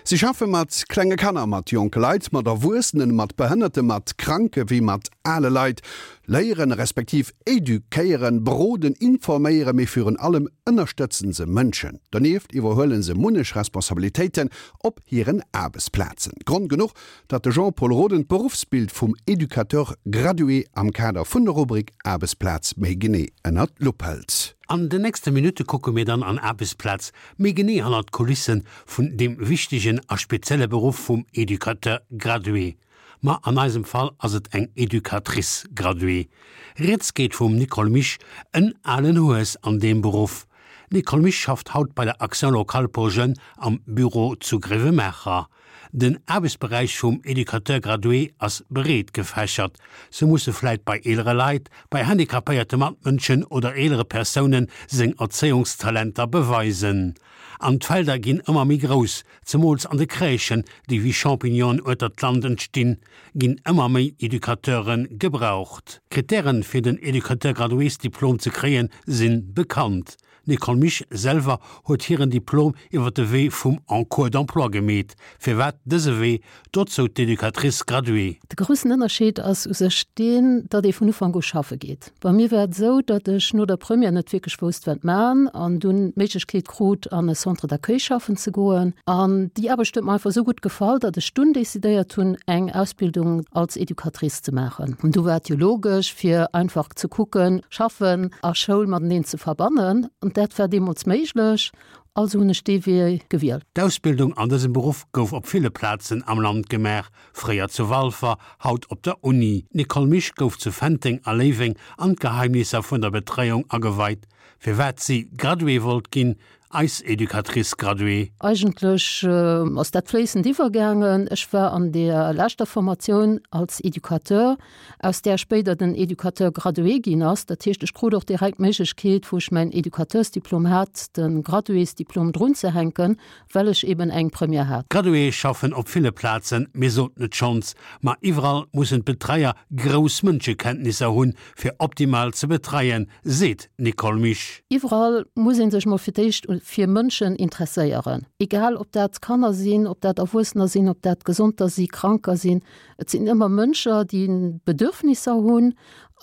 Si schaffe mat klenge Kanner, mat jonke Leit, mat Erwuessenen, mat Behënnerte, mat Kranke wéi mat ale Leit. Léieren, respektiv eduquéieren, beroden, informéieren, mee virun allem ënnerstëtzen se Mënschen. Donieft iwwerhuelen se munnech Responsabilitéiten op hiren Aarbechtsplazen. Grond genuch, datt de Jean-Pol Roden d'Beruffsbild vum Educateur gradué am Kader vun der Rubrik Aarbechtsplaz méi genee ënnert d'Lupp hëlt. An den nächste Minutte kucke mir dann an Aarbechtsplaz méi genee hannert d'Kulisse vun deem wichtegen a spezielle Beruff vum Educateur gradué. Ma an eisem Fall ass et eng Educatrice graduée. Rieds geet vum Nicole Misch, en alen Hues an deem Beruff. D'Nicole Misch schafft haut bei der Action locale pour jeunes am Büro zu Gréiwemaacher. Den Aarbechtsberäich vum Educateur gradué ass breet gefächert. Sou musse vläit bei eelere Leit, bei handicapéierte Matmënschen oder eelere Persounen seng Erzéiungstalenter beweisen. An d'Felder ginn ëmmer méi grouss, Zemools an de Crèchen, déi wéi Champignonen ueter d'Land entstinn, ginn ëmmer méi Educateure gebraucht. D'Krittären, fir den Educateur gradués-Diplom ze kréien, si bekannt. D'Nicole Misch selwer huet hiren Diplom iwwer de Wee vum Encours d'emploi gemeet. Firwat dëse Wee? Dozou d'Educatrice graduée. De groussen Ënnerscheed ass u sech deen, datt ee vun Ufank u schaffe geet. Bei mir war et esou, datt ech no der Première net wierklech wousst, wat man an dunn d'Méiglechkeet krut, an e Centre d'accueil schaffen ze goen. An déi Aarbecht huet mer einfach esou gutt gefall, datt ech dunn decidéiert hunn, eng Ausbildung als Educatrice ze maachen. An du war et jo logesch, fir einfach ze kucken, Schaffen a Schoul mateneen ze verbannen. An dat war deemools méiglech, also hunn ech dee Wee gewielt. D'Ausbildung an dësem Beruff gouf op ville Plazen am Land gemaach, Fréier zu Walfer, haut op der Uni. D'Nicole Misch gouf zu Fenteng a Léiweng an d'Geheimnisser vun der Betreiung ageweit. Firwat si Graduée wollt ginn, eis Educatrice graduée. Eigentlech ass dat fléissend iwwergaangen. Ech war an der leschter Formatioun als Educateur, aus där spéider den Educateur gradué ginn ass. Dat heescht, ech krut och direkt d'Méiglechkeet, wou ech mäin Educateursdiplom hat, de Graduésdiplom drunzehänken, well ech eben eng Première hat. Graduéë schaffen op ville Plazen, mir soten et schonns, ma iwwerall mussen d'Betreier grouss Mënschekenntnisser hunn, fir optimal ze betreien, seet d'Nicole Misch. Iwwerall muss ee sech mol fir d'éischt fir Mënschen interesséieren, egal ob dat Kanner sinn, ob dat Erwuessener sinn, ob dat Gesonter si, Kranker sinn. Et sinn ëmmer Mënscher, déi Bedürfnisser hunn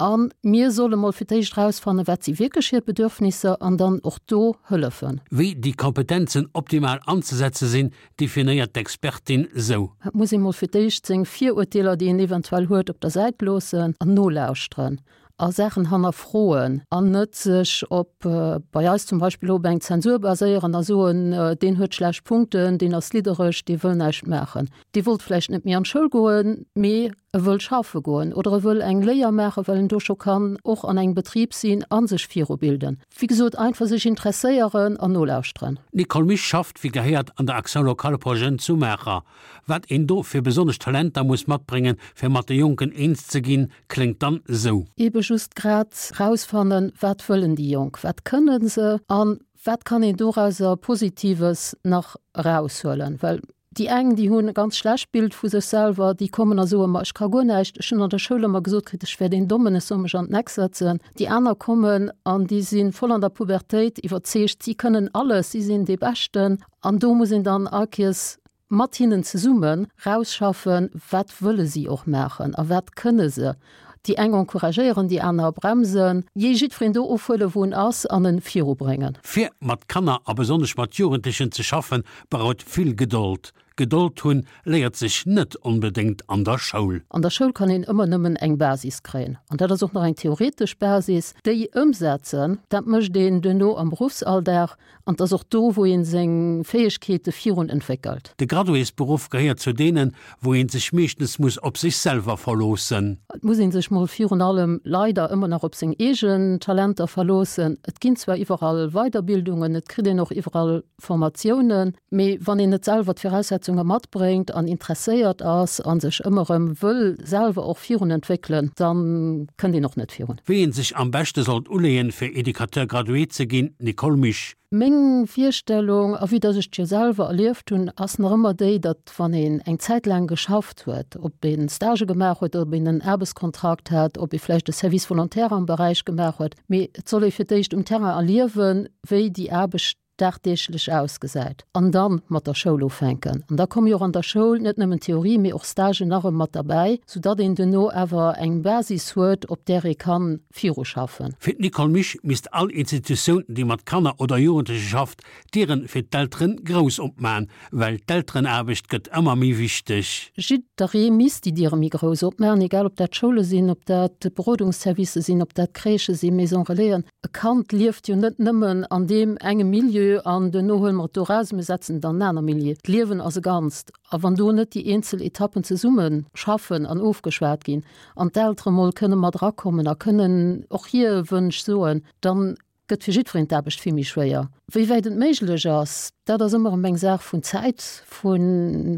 A mir solle mol fir d'éischt erausfannen, wat si wierklech hir Bedürfnisser an dann och do hëllefen. Wéi déi Kompetenzen optimal anzesetze sinn, definéiert d'Expertin sou. Et muss ee mol fir d'éischt seng Virurteeler, déi een eventuell huet, op der Säit loossen an nolauschteren a Saachen hannerfroen an net sech op, bei eis zum Beispill, op eng Zensur baséieren a soen, deen huet schlecht Punkten, deen ass liddereg, dee wëll näischt maachen. Dee wollt vläicht net méi an d'Schoul goen, mee e wëll schaffe goen oder e wëll eng Léier maachen, well en do scho kann och an engem Betrib sinn a sech virubilden. Wéi gesot, einfach sech interesséieren an nolauschteren. D'Nicole Misch schafft wéi gehéiert an der Action locale pour jeunes zu Maacher. Wat een do fir besonnesch Talenter muss matbréngen, fir mat de Jonken eens ze ginn, kléngt dann esou. Ebe just grad rausfannen, wat wëllen déi Jonk, wat kënne se a wat kann een dorauser Positives nach eraushuelen. Well Déi eng, déi hunn e ganz schlecht Bild vu sech selwer, déi kommen a soen, ma ech ka guer näischt, ech hunn an der Schoul ëmmer gesot kritt, ech wär deen Dommen, ech soll mech an den Eck setzen. Déi aner kommen an déi si voll an der Pubertéit, iwwerzeegt, si kënnen alles, si sinn dee Beschten. An do muss een dann all Kees mat hinnen zesumme rausschaffen, wat wëlle si och maachen a wat kënne se. Déi eng encouragéieren, déi aner bremsen. Jee jiddwereen do ofhuelen, wou en ass an en virubréngen. Fir mat Kanner a besonnesch mat Jugendlechen ze schaffen, braucht vill Gedold. Gedold hunn léiert sech net onbedéngt an der Schoul. An der Schoul kann een ëmmer nëmmen eng Basis kréien, an dat ass och nach eng theoretesch Basis. Déi ëmsetzen, dat mécht een duerno am Beruffsalldag. An 't ass och do, wou een seng Fäegkeete virun entwéckelt. De Graduésberuff gehéiert zu deenen, wou een sech meeschtens muss op sech selwer verloossen. Et muss een sech mol virun allem leider ëmmer nach op seng eegen Talenter verloossen. Et ginn zwar iwwerall Weiderbildungen, et kritt een och iwwerall Formatiounen, mee wann een net selwer d'Viraussetzunge matbréngt an interesséiert ass a sech ëmmer erëm wëll selwer och virun entwéckelen, da kënnt een och net virun. Wéi een sech am beschte sollt uleeën, fir Educateur gradué ze ginn, Nicole Misch. Meng Virstellung, a vue dass ech et jo selwer erlieft hunn, ass nach ëmmer déi, datt wann een eng Zäit laang geschafft huet, ob ee Stagë gemaach huet, ob een en Aarbechtskontrakt hat, ob ee vläicht e Service volontaire am Beräich gemaach huet, mee et soll ee fir d'éischt um Terrain erliewen, wéi déi Aarbecht. dagdeeglech ausgesäit an dann mat der Schoul ufänken. An da komme jo och an der Schoul net nëmmen Theorie, mee och Stagen nach erëm mat derbäi, soudatt een duerno awer eng Basis huet, op där ee kann viruschaffen. Fir d'Nicole Misch misst all Institutioun, déi mat Kanner oder Jugendleche schafft, d'Dieren fir d'Elteren grouss opman, well d'Elterenaarbecht gëtt ëmmer méi wichteg. Jidderee misst déi Diere méi grouss opmaachen, egal ob dat Schoule sinn, ob dat Berodungsservicë sinn, ob dat Crèchë sinn, Maison Relaisen. E Kand lieft jo net nëmmen an deem enge Milieu an duerno huele mer et do eraus a mir setzen et an en aner Milieu. D'Liewen ass e Ganzt a wann do net déi eenzel Etappen zesumme schaffen an ofgeschwat ginn an d'Eltere mol kënne mat erakommen a kënnen och hir Wënsch soen, dann gëtt fir jiddwereen d'Aarbecht vill méi schwéier. Wéi wäit et méiglech ass, dat ass ëmmer erëm eng Saach vun Zäit, vu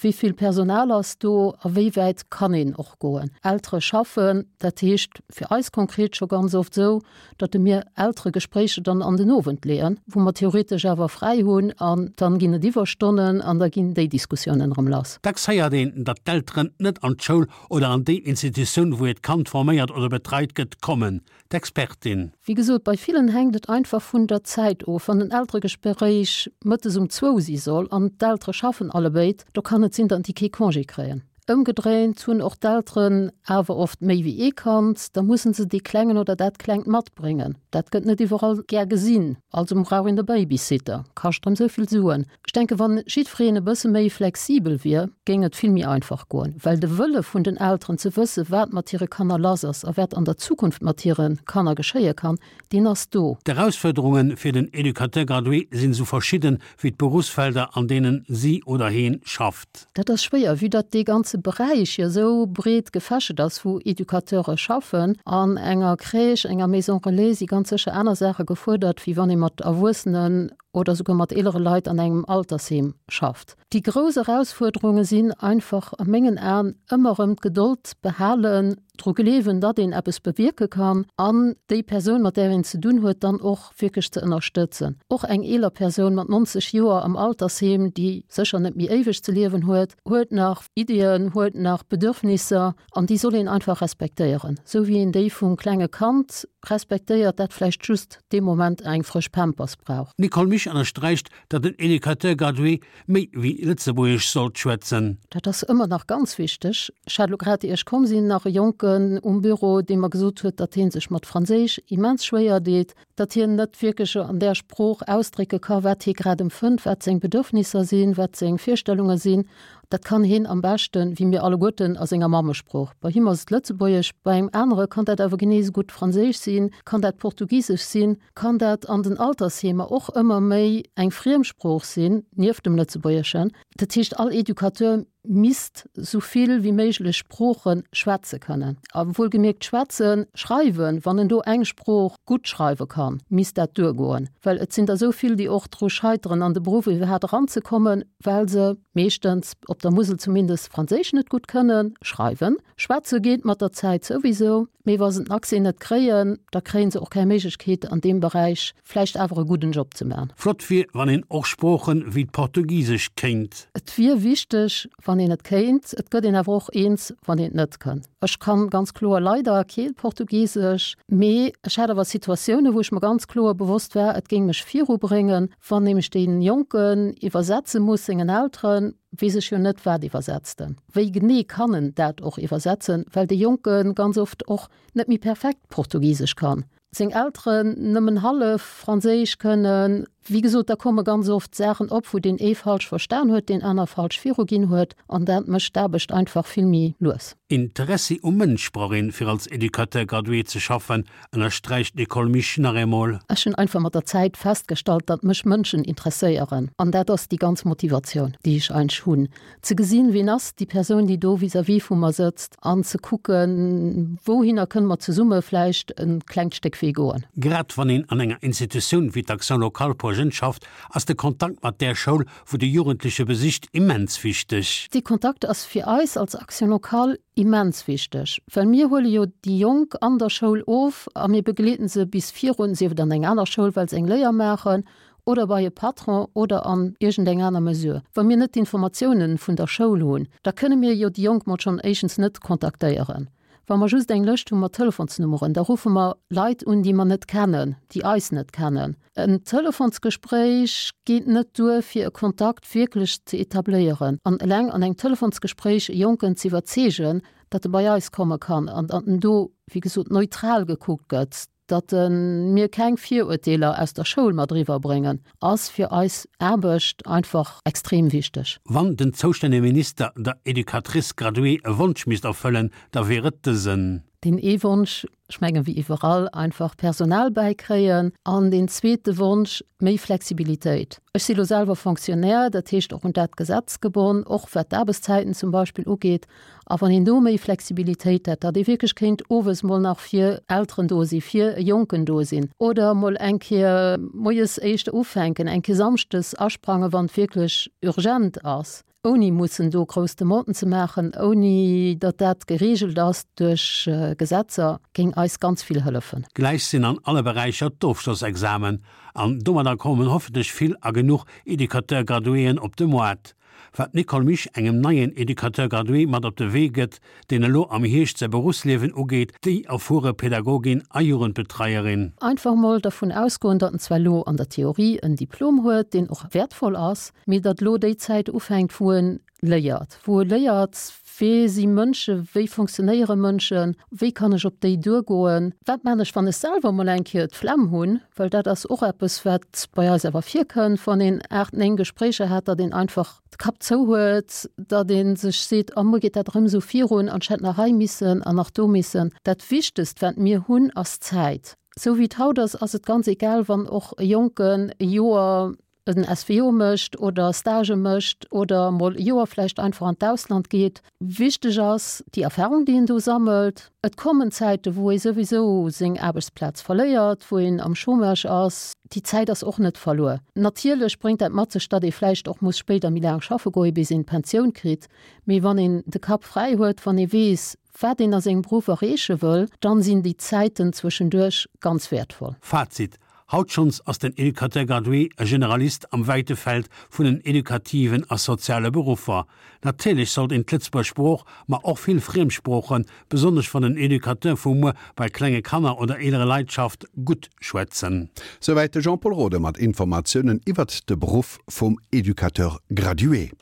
wéi vill Personal ass do a wéi wäit kann een och goen. Eltere schaffen, dat heescht fir eis konkret scho ganz oft esou, datt mir Elteregespréicher dann an den Owend leeën, wou mer theoretesch awer fräi hunn an dann ginn et Iwwerstonnen an da ginn déi Diskussiounen erëm lass. Dacks héiert een, datt d'Elteren net an d'Schoul oder an déi Institutioun, wou hiert Kand forméiert oder betreit gëtt, kommen. D'Expertin. Wéi gesot, bei villen hänkt et einfach vun der Zäit of. Wann en Elteregespréich mëttes um zwou si soll an d'Eltere schaffen allebéid, do kann et sinn, datt déi kee Congé kréien. Ëmgedréint hunn och d'Elteren awer oft méi wéi ee Kand, da mussen se dee Klengen oder dat Klengt matbréngen. Dat gëtt net iwwerall gär gesinn, also brauch een e Babysitter, kascht erëm esou vill Suen. Ech denken, wann jiddwereen e bësse méi flexibel wier, géing et vill méi einfach goen, well de Wëlle vun den Elteren ze wësse wat mat hire Kanner lass ass a wat an der Zukunft mat hire Kanner geschéie kann, deen ass do. D'Erausfuerderunge fir den Educateur gradué sinn esou verschidden wéi d'Beruffsfelder, an deenen si oder heen schafft. Dat ass schwéier, vue datt dee ganze Beräich jo esou breet gefächert ass, wou Educateure schaffen. An enger Crèche, enger Maison relais si ganz sécher aner Saache gefuerdert, wéi wann ee mat Erwuessenen oder souguer mat eelere Leit an engem Altersheem schafft. Déi grouss Erausfuerderunge sinn einfach a mengen Aen ëmmer erëm d'Gedold behalen, dru gleewen, datt een eppes bewierke kann an déi Persoun, mat där een ze dunn huet, dann och wierklech ze ënnerstëtzen. Och eng eeler Persoun mat 90 Joer am Altersheem, déi sécher net méi éiweg ze liewen huet, huet nach Iddien, huet nach Bedürfnisser an déi soll een einfach respektéieren, esou wéi een déi vum klenge Kand respektéiert, dat vläicht just dee Moment eng frësch Pampers brauch. D'Nicole Misch ënnersträicht, datt en Educateur gradué méi wéi Lëtzebuergesch sollt schwätzen. Dat ass ëmmer nach ganz wichteg. Ech hat elo grad, ier ech komm sinn, nach e Jonken um Büro, dee mer gesot huet, datt hie sech mat Franséisch immens schwéier deet, datt hien net wierklech an där Sprooch ausdrécke ka wat hie grad empfënnt, wat seng Bedürfnisser sinn, wat seng Virstellunge sinn. Dat kann hien am beschten, wéi mir alleguerten, a senger Mammesprooch. Bei him ass et Lëtzebuergesch, bei engem anere kann dat awer genee esou gutt Franséisch sinn, kann dat Portugisesch sinn, kann dat an den Altersheemer och ëmmer méi eng Friemsprooch sinn, nieft dem Lëtzebuergeschen. Dat heescht, all Educateur misst sou vill wéi méiglech Sprooche schwätze kënnen. A wuelgemierkt schwätzen, schreiwen, wann en do eng Sprooch gutt schreiwe kann, misst dat duergoen. Well et sinn der sou vill, déi och dru scheiteren, an de Beruff iwwerhaapt eranzekommen, well se meeschtens, op der Musel zumindest, Franséisch net gutt kënnen schreiwen. Schwätze geet mat der Zäit souwisou, mee wa se den Accès net kréien, da kréie se och keng Méiglechkeet an deem Beräich vläicht awer e gudden Job ze man. Flott wier, wann een och Sproochen wéi d'Portugiesescht kéint. Et wier wichteg, wann een et kéint. Et gëtt een awer och eens, wann een et net kënn. Ech kann ganz kloer leider kee Portugisesch, mee ech hat awer Situatiounen, wou ech mer ganz kloer bewosst war, et géing mech virubréngen, wann nämlech dee Jonken iwwersetze muss sengen Elteren, weess ech jo net, wat iwwersetzt en, wéi genee kann en dat och iwwersetzen, well dee Jonke ganz oft och net méi perfekt Portugisesch kann. Seng Elteren nëmmen hallef Franséisch kënnen. Wéi gesot, da komme ganz oft Saachen op, wou deen ee falsch verstan huet, deen aner falsch viruginn huet, an dat mécht d'Aarbecht einfach vill méi lues. Interessi um Mënsch brauch een, fir als Educateur gradué ze schaffen, ënnersträicht d'Nicole Misch nach eemol. Ech hunn einfach mat der Zäit festgestallt, datt mech Mënschen interesséieren, an dat ass déi ganz Motivatioun, déi ech eigentlech hunn. Ze gesinn, wien ass déi Persoun, déi do vis-à-vis vu mer sëtzt, an ze kucken, wouhinner kënne mer zesumme vläicht e klengt Stéck Wee goen. Grad wann een an enger Institutioun wéi d'Action locale pour jeunes schafft, ass de Kontakt mat där Schoul, wou de Jugendleche besicht, immens wichteg. Dee Kontakt ass fir eis als Action locale immens wichteg, well mir huele jo déi Jonk an der Schoul of a mir begleeden se bis virun, sief et an eng aner Schoul, well se eng Léier maachen, oder bei e Patron oder an iergendeng aner Mesure. Wa mir net d'Informatiounen vun der Schoul hunn, da kënne mir jo déi Jonk mol schonn éischtens net kontaktéieren. Wa mer just eng Lëscht hu mat Telefonsnummeren, da ruffe mer Leit un, déi mer net kennen, déi eis net kennen. En Telefonsgespréich geet net duer, fir e Kontakt wierklech ze etabléieren. An eleng an engem Telefonsgespréich e Jonken ze iwwerzeegen, datt e bei eis komme kann an datt en do, wéi gesot, neutral gekuckt gëtt, datt mir keng Virurteeler aus der Schoul mat eriwwer bréngen, ass fir eis Aarbecht einfach extrem wichteg. Wann den zoustännege Minister der Educatrice graduée e Wonsch misst erfëllen, da wier et dësen. Deen ee Wonsch, ech mengen, wéi iwwerall, einfach Personal bäikréien. An deen zweete Wonsch, méi Flexibilitéit. Ech si lo selwer Fonctionnaire, dat heescht och un dat Gesetz gebonn, och wat d'Aarbechtszäiten zum Beispill ugeet. A wann een do méi Flexibilitéit hätt, datt ee wierklech kéint owes mol nach fir Elteren do sinn, fir e Jonken do sinn oder mol eng Kéier moies éischter ufänken, eng Kéier samschdes asprangen, wann et wierklech urgent ass, ouni mussen do grouss Demanden ze maachen, ouni datt dat gereegelt ass duerch Gesetzer, géing eis ganz vill hëllefen. Gläich sinn an alle Beräicher d'Ofschlossexamen an domadder kommen hoffentlech vill a genuch Educateur-Graduéen op de Moart. Wat d'Nicole Misch engem neien Educateur gradué mat op de Wee gëtt, deen elo am Hierscht säi Beruffsliewen ugeet, déi erfuere Pädagogin a Jugendbetreierin. Einfach mol dervun ausgoen, datt en zwar elo an der Theorie en Diplom huet, deen och wäertvoll ass, mee datt elo déi Zäit ufänkt, wou en léiert, wou e léiert, Wee si Mënschen, wéi funktionéiere Mënschen, wéi kann ech op déi duergoen, wat man ech, wann ech selwer mol eng Kéier d'Flemm hunn, well dat ass och eppes, wat bei eis awer virkënnt, wann een 8, 9 Gespréicher hat, datt een einfach de Kapp zou huet, datt ee sech seet, oh muer geet dat erëm esou virun an ech hätt nach hei missen an nach do missen. Dat Wichtegst, wat mir hunn, ass Zäit. Esou wéi et haut ass, ass et ganz egal, wann och e Jonken e Joer en SVO mécht oder Stagë mécht oder mol e Joer vläicht einfach an d'Ausland geet. Wichteg ass déi Erfahrung, déi een do sammelt. Et kommen Zäite wou ee souwisou seng Aarbechtsplaz verléiert, wou een am Chômage ass. Déi Zäit ass och net verluer. Natierlech bréngt dat mat sech, datt ee vläicht och muss spéider méi laang schaffe goe bis een d'Pensioun kritt. Mee wann een de Kapp fräi huet, wann ee weess, wat een a sengem Beruff erreeche wëll, dann sinn déi Zäiten zwëschenduerch ganz wäertvoll. Fazit, Haut schonns ass den Educateur gradué e Generalist am wäite Feld vun den edukativen a soziale Beruffer. Natierlech sollt een d'Lëtzebuerger Sprooch, ma och vill Friemsproochen, besonnesch wann den Educateur vu muer bei klenge Kanner oder eelere Leit schafft, gutt schwätzen. Souwäit de Jean-Pol Rode mat Informatiounen iwwert de Beruff vum Educateur gradué.